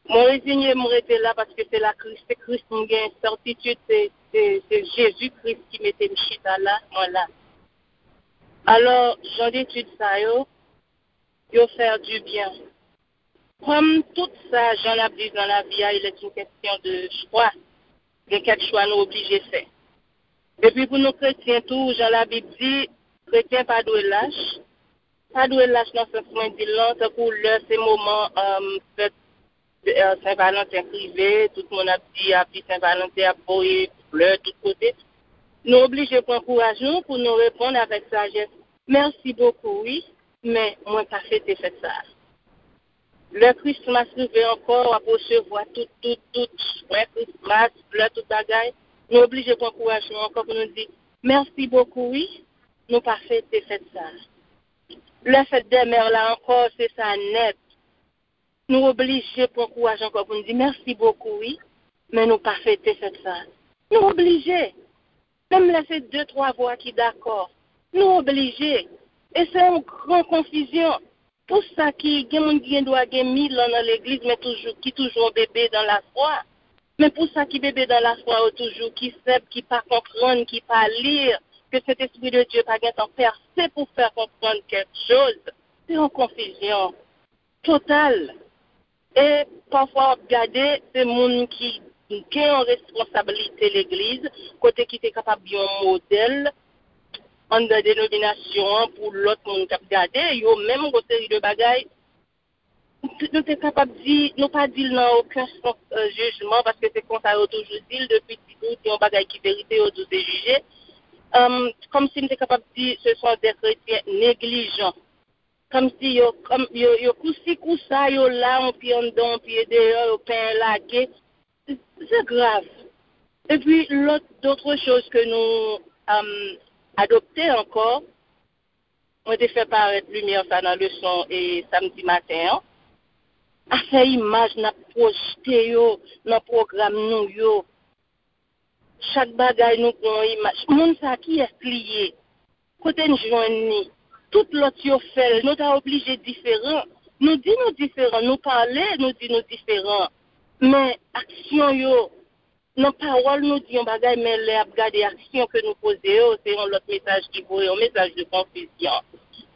Mwen reziye m rete la paske se la Kris, se Kris m gen sètitid, se, se, se Jezi Kris ki mete m chita la, mwen la. Alò, jan detid sa yo, yo fè di byen. Kòm tout sa, jan n ap viv nan lavi a, il est une question de choix. Gen kèk chwa nou oblije fè. Epi pou nou kretyen tou, jan Labib di, kretyen pa dwe lach. Pa dwe lach nan sans mwen di l lan, tankou lè se moman, um, fèt, euh, Sen Valanten k rive, tout moun ap di Happy Sen Valanten, ap voye flè tout kote. Nou oblije pran kouraj nou pou nou reponn avèk sajès. Mèsi bokou, wi, men mwen pa fete fèt sa a. Lè Christmas rive ankò, w ap resevwa tout, tout, tout swen Christmas, flè, tout bagay. Nou oblije pran kouraj nou ankò pou nou di, mèsi bokou, wi, nou pa fete fèt sa a. Lè fèt dè mè la ankò, se sa nèt. Nou oblije pran kouraj ankò pou n di, mèsi bokou, wi, men nou pa fete fèt sa a. Nou oblije. Menm lè se de, twa vwa ki dakò, nou oblije. E se yon gran konfizyon. Pou sa ki, gen moun ki gen dwa gen mil an nan legliz, men toujou, ki toujou yon bebe dan lafwa. Men pou sa ki bebe dan lafwa yo toujou, ki senp, ki pa konprann, ki pa li, ke Sentespri de Dye pa gentan pèse pou fè konprann kèk choz, se yon konfizyon total. E pafwa w ap gade, se moun ki gen yon responsablite legliz, kote ki te kapab yon modèl anndan denominasyon an pou lòt moun k ap gade, yo menm gon seri de bagay, nou te kapab di, nou pa di l nan okenn sans, euh, jijman, paske se konsa yo toujou di l, depi ti tou, se yon bagay ki verite, yo di w se jije. Euh, kòmsi m te kapab di, ce sont des chrétiens négligents. Kòmsi yo, kòm, yo, yo kousi kousa, yo la, yon pye anndan, yon pye deyò, yo penyen lage. Se grav. Epi, lòt, d'autres choses que nou, um, adopte ankò. Mwen te fè parèt limyè sa nan leson e samdi maten an. Afè imaj n ap pwojte yo nan pwogram nou yo. Chak bagay nou gen yon imaj. Moun sa kiyès li ye? Kote n jwenn li? Tout lòt yo fè l. Nou ta oblije diferan. Nou di nou diferan. Nou pale, nou di nou diferan. Men aksyon yo, nan pawòl nou di yon bagay, men lè ap gade aksyon ke nou poze yo, se yon lòt mesaj ki voye, yon mesaj de konfizyon.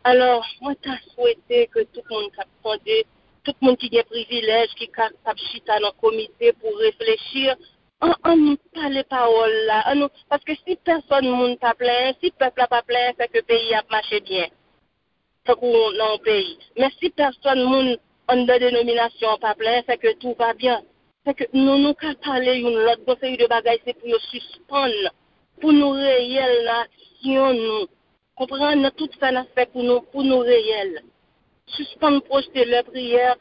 Alò, mwen ta swete ke tout moun k ap tande, tout moun ki gen privilèj, ki kapab chita nan komite pou reflechi, an, an nou pale pawòl la, an nou, paske si pèsòn moun pa plenyen, si pèp la pa plenyen, se ke peyi a ap mache byen. Tankou nan yon peyi. Men si pèsòn moun anndan denominasyon an pa plenyen, se ke tout va byen. Se ke nou, nou ka pale youn lòt, gon seri de bagay se pou yo sispann, pou nou reyèl nan aksyon nou. Konprann nan tout sa n ap fè pou nou, pou nou reyèl. Sispann pwojte lè priyè,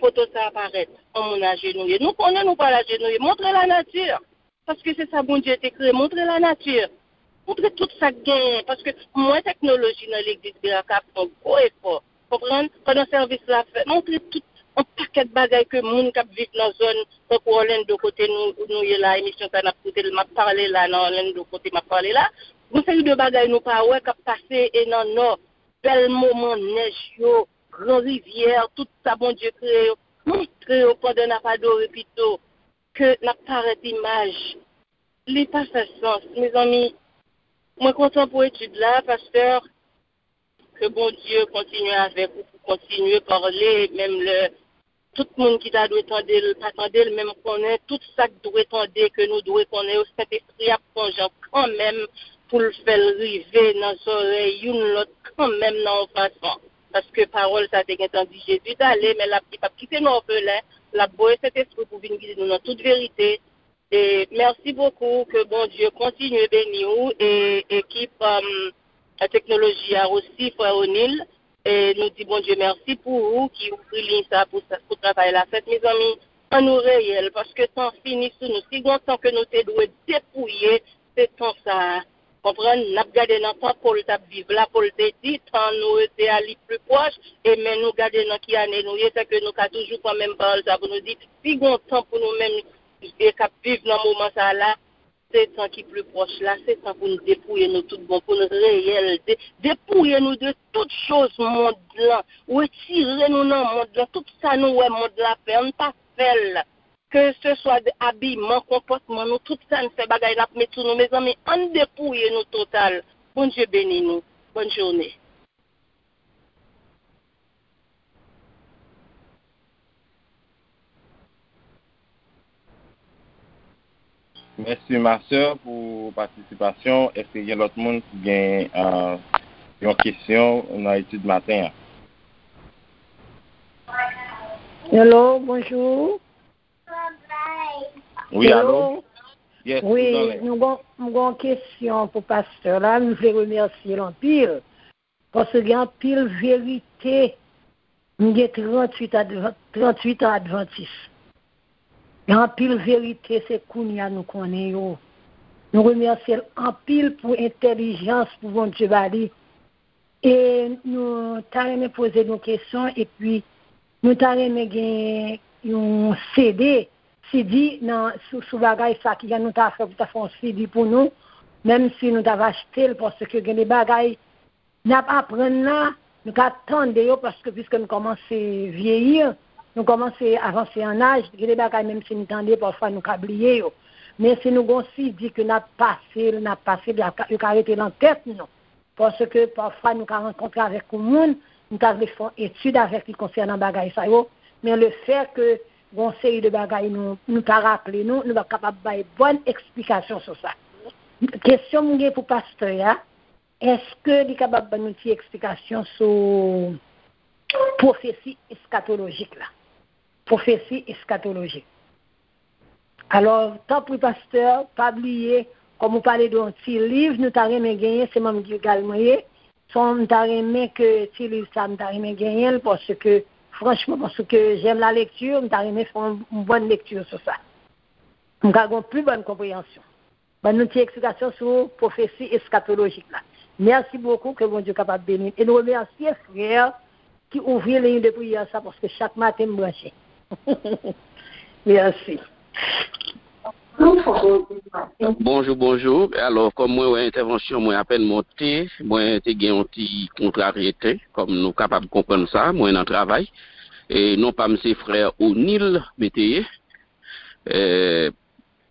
foto sa a parèt, yon moun ajenouye. Nou konnen nou pral ajenouye. Montre lanati. Paske se sa Bondye te kreye. Montre lanati. Montre tout sa k genyen. Paske m wè teknoloji nan legliz Beraka ap fè yon gwo efò. Konprann? Pandan sèvis la ap fèt, montre tout yon pakèt bagay ke moun k ap viv nan zòn tankou Orlando kote nou, nou ye la, emisyon sa n ap koute l, m ap pale la nan Orlando kote m ap pale la. Gon seri de bagay nou pa wè k ap pase e nan Nò. Bèl moman nèj yo, gran rivyè, tout sa Bondye kreye yo, montre yo pandan n ap adore pito ke n ap parèt imaj. Li pa fè sans, mezanmi. Mwen kontan pou etid la, pastè. Ke Bondye kontinye avèk ou, pou kontinye pale, menm lè tout moun ki ta dwe tande l pa tande l, men m konnen tout sa k dwe tande, ke nou dwe konnen yo, Sentespri ap fè yon jan kanmenm pou l fè l rive nan zòrèy youn lòt kanmenm nan yon fason. Paske pawòl sa te gentan di Jezi t ale, men l ap, li p ap kite nou òfelen, l ap voye Sentespri pou vin gide nou nan tout verite. E mèsi bokou, ke Bondye kontinye beni w e ekip um, teknoloji a osi, frè O'Neil. E nou di Bondye mèsi pou ou ki ouvri liy sa pou, sa- pou travay la fèt, mezanmi. An nou reyèl, paske tan fini sou nou. Si gon tan ke nou te dwe depouye, se tan sa a. Konprann? N ap gade nan tan Pòl t ap viv la, Pòl te di, tan nou rete a li pli pwòch, e men nou gade nan ki ane nou ye, se ke nou ka toujou pran menm pawòl sa pou nou di, si gon tan pou nou menm e k ap viv nan moman sa a la, se tan ki pli pwòch la, se tan pou n depouye nou tout bon, pou n reyèl, de, depouye nou de tout choz mond lan, retire nou nan mond lan, tout sa nou wè mond la fè, ann pa fè l. Ke se swa de abiman, konpòtman nou, tout sa n fè, bagay n ap met sou nou, mezanmi, ann depouye nou total. Bondye beni nou. Bòn jounen. Mèsi, ma sè, pou patisipasyon. Èske gen lòt moun ki gen uh, yon kesyon nan etid maten an? Hello, bonjou. Wi, alo? Yes, wi, nou gon, m gon kesyon pou pastè la, m vle remèsye l anpil. Paske gen anpil verite, m gen tranntuit advan, tranntuit an advantis. Gen anpil verite, se kounye a nou konnen yo. Nou remèsye l anpil pou entèlijans pou Bondye ba li. E nou ta renmen poze nou kesyon, epi nou ta renmen gen yon CD, CD nan, sou, sou bagay sa ki jan nou ta fè pou ta fè yon CD pou nou, menm si nou ta va achte l, paske gen de bagay n ap aprann la, nou ka tande yo, paske piske nou kòmanse vyeyi, nou kòmanse avanse an aj, gen de bagay menm si nou tande, pafwa nou ka bliye yo. Men si nou gon CD ke n ap pase l, n ap pase l, yo ka rete nan tèt nou. Paske pafwa nou ka rankontre avèk yon moun, nou ta vle fè yon etid avèk li konsènan bagay sa yo, men lefètke gon seri de bagay nou, nou pa raple nou, nou pa kapab bay bòn eksplikasyon sou sa. Kesyon m gen pou pastè a, èske li kapab ban nou ti eksplikasyon sou pwofesi eskatolojik la? Pwofesi eskatolojik. Alò, tanpri pastè, pa bliye, kòm ou pale de yon ti liv, nou ta renmen genyen, se manm Gilgal mwen ye. Son, m ta renmen ke ti liv sa, m ta renmen genyen l, paske, franchman, paske j'aime la lecture, m ta renmen fè yon bòn lekti sou sa. M ka gen yon pi bòn konpreyansyon. Ban nou ti eksplikasyon sou pwofesi eskatolojik la. Mèsi bokou, ke Bondye kapab beni n. E nou remèsye frè ki ouvri liy de priyè sa, paske chak maten m branche. Mèsi. Bonjou, bonjou. Alò, kòm mwen wè entèvansyon mwen apèn monte, mwen te gen yon ti kontraryete, kòm nou kapab konprann sa, mwen nan travay. E non pa m se frè O'Neil, mwen te ye. E,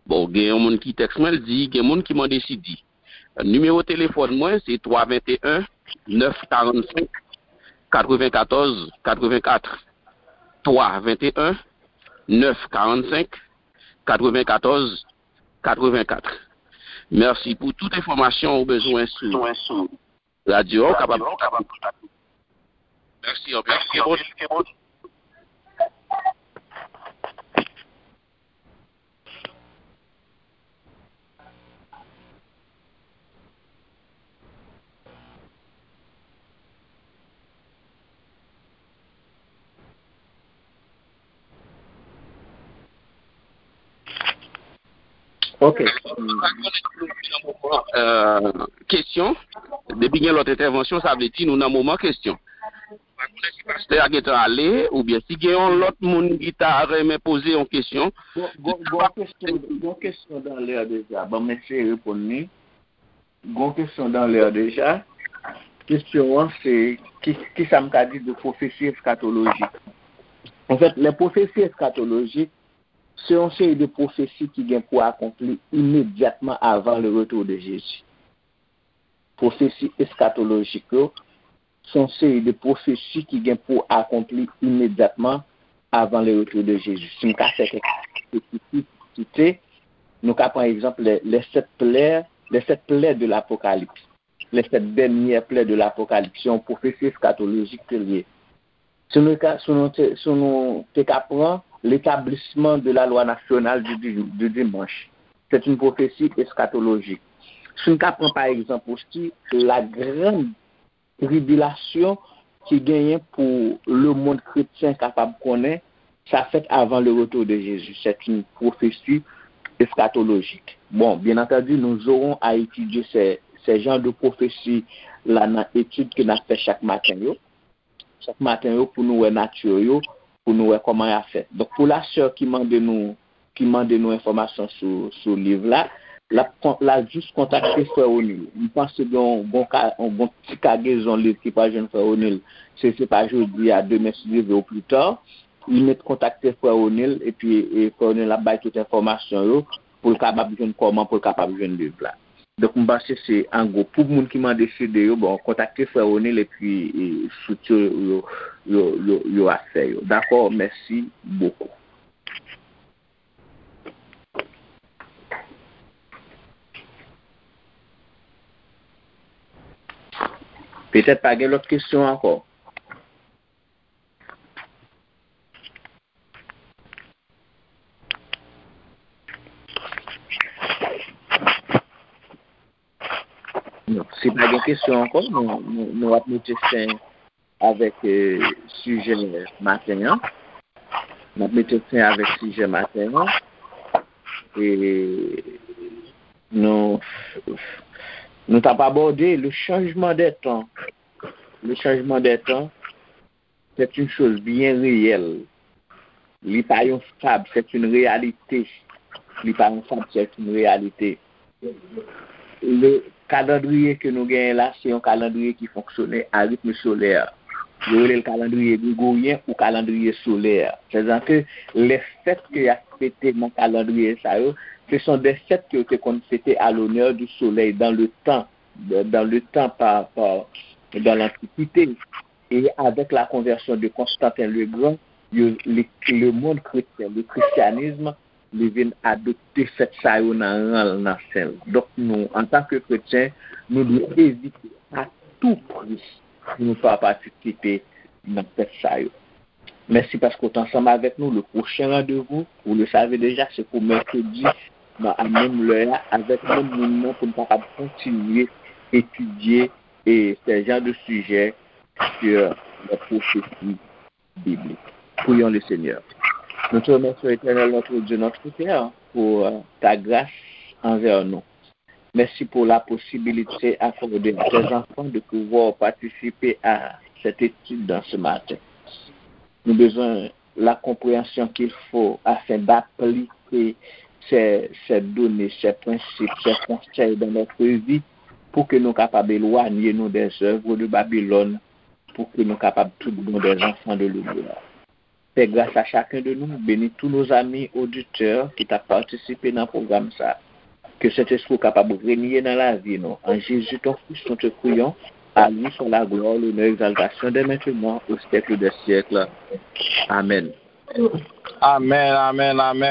bon, gen yon moun ki tèks mwen, l di, gen moun ki mande si di. Nimewo telefòn mwen, se twa venteyen, nèf karannsenk, katrevenkatòz, katrevenkat. Twa venteyen, nèf karannsenk, katrevenkatòz, katrevenkat. Mèsi pou tout enfòmasyon ou bezwen sou radyo a, ou kapab kontakte. Mèsi anpil. Ok. Kesyon. Depi gen lòt entèvansyon, sa vle di nou nan moman kesyon. Pastè a gentan ale, oubyen si gen yon lòt moun ki ta renmen poze yon kesyon. Gon kesyon dan lè deja, ban m eseye reponn li. Gon kesyon dan lè deja. Kesyon an se, ki, ki sa m ka di de pwofesi eskatolojik? Anfèt, lè pwofesi eskatolojik, se yon seri de pwofesi ki gen pou akonpli imedyatman avan le retour de Jezi. Pwofesi eskatolojik yo, se yon seri de pwofesi ki gen pou akonpli imedyatman avan le retour de Jezi. Si m ka fè kèk espesifik site, nou ka pran egzanp les, les sept plaies, les sept plaies de l'Apocalypse. Les sept dernières plaies de l'Apocalypse. Se yon pwofesi eskatolojik ke l ye. Si nou ka, si nou te, si nou te ka pran l'établissement de la loi nationale du, du, du dimanche, c'est une prophétie eschatologique. Si nou ka pran pa egzanp osi la grande tribulation ki genyen pou le monde chrétien kapab konnen, sa fèt avant le retour de Jésus. C'est une prophétie eschatologique. Bon, bien entendu, nous aurons à étudier ces, ces genres de prophéties là nan etid ke n ap fè chak maten yo. Chak maten yo pou nou wè nati yo, pou nou wè kòman y ap fèt. Donk, pou la sè ki mande nou, ki mande nou enfòmasyon sou, sou liv la, l ap, l ap jis kontakte frè O'Neil. M panse gen yon, gon ka, yon, gon ti kagezon liv ki pral jwenn frè O'Neil. Se, se pa jodi a, demen si Dye vle ou pli ta. Li mèt kontakte frè O'Neil, epi e, frè O'Neil ap bay tout enfòmasyon yo pou l kapab jwenn kòman pou l kapab jwenn liv la. Donk, m panse se an gwo. Pou moun ki mande C D yo, bon, kontakte frè O'Neil epi e, fout yo, yo, yo, yo, yo ap fè yo. Dakò, mèsi bokou. Petèt pa gen lòt kesyon ankò. Non, si pa gen kesyon ankò, nou, nou, nou ap mete fen avèk e, sijè maten an. Nou ap mete fen avèk sijè maten an. E nou, nou t ap abòde le changement des temps. Le changement des temps, c'est une chose bien réelle. Li pa yon fab, c'est une réalité. Li pa yon fab, c'est une réalité. Le kalandriye ke nou genyen la, se yon kalandriye ki fonksyone a ritme solè. Yo rele l kalandriye gregoryen ou kalandriye solè. Sètadi ke les fêtes ke y ap fete nan kalandriye sa yo, ce sont des fêtes que yo te konn fete à l'honneur du soleil dans le temps, dans le temps par, par, dans l'Antiquité. E avèk la konvèsyon de Konstanten le Gran, yo, le, le monde chrétien, le christianisme, li vin adopte fèt sa yo nan ran l, nan sen l. Donk, nou, antanke kretyen, nou dwe evite a tou pri pou nou pa patisipe nan fèt sa yo. Mèsi paske w t ansanm avèk nou. Le pwochen randevou, vous le savez déjà, se pou mèkredi, nan, a menm lè a, avèk menm moun nan, pou n kapab kontinye etidye e ces genres de sujets sur les prophéties bibliques. Prions le Seigneur. Nous te remercions, Éternel, notre Dieu, notre Père, pour euh, ta grâce envers nous. Merci pour la possibilité accordée à tes enfants de pouvoir participer à cette étude dans ce matin. Nous besoin la compréhension qu'il faut afin d'appliquer ces, ces données, ces principes, ces conseils dans notre vie pour que nous capables d'éloigner nous des œuvres de Babylone, pour que nous capables tout bon des enfants de lumière. Pè, gras a chaken de nou, beni tous nos amis auditeurs ki t ap patisipe nan pwogram sa. Ke Sentespri w kapab renye nan lavi nou. En Jésus ton Fils, nous te prions. À lui soit la gloire, l'honneur, l'exaltation dès maintenant, au siècle des siècles. Amen. Amen, amen, amen.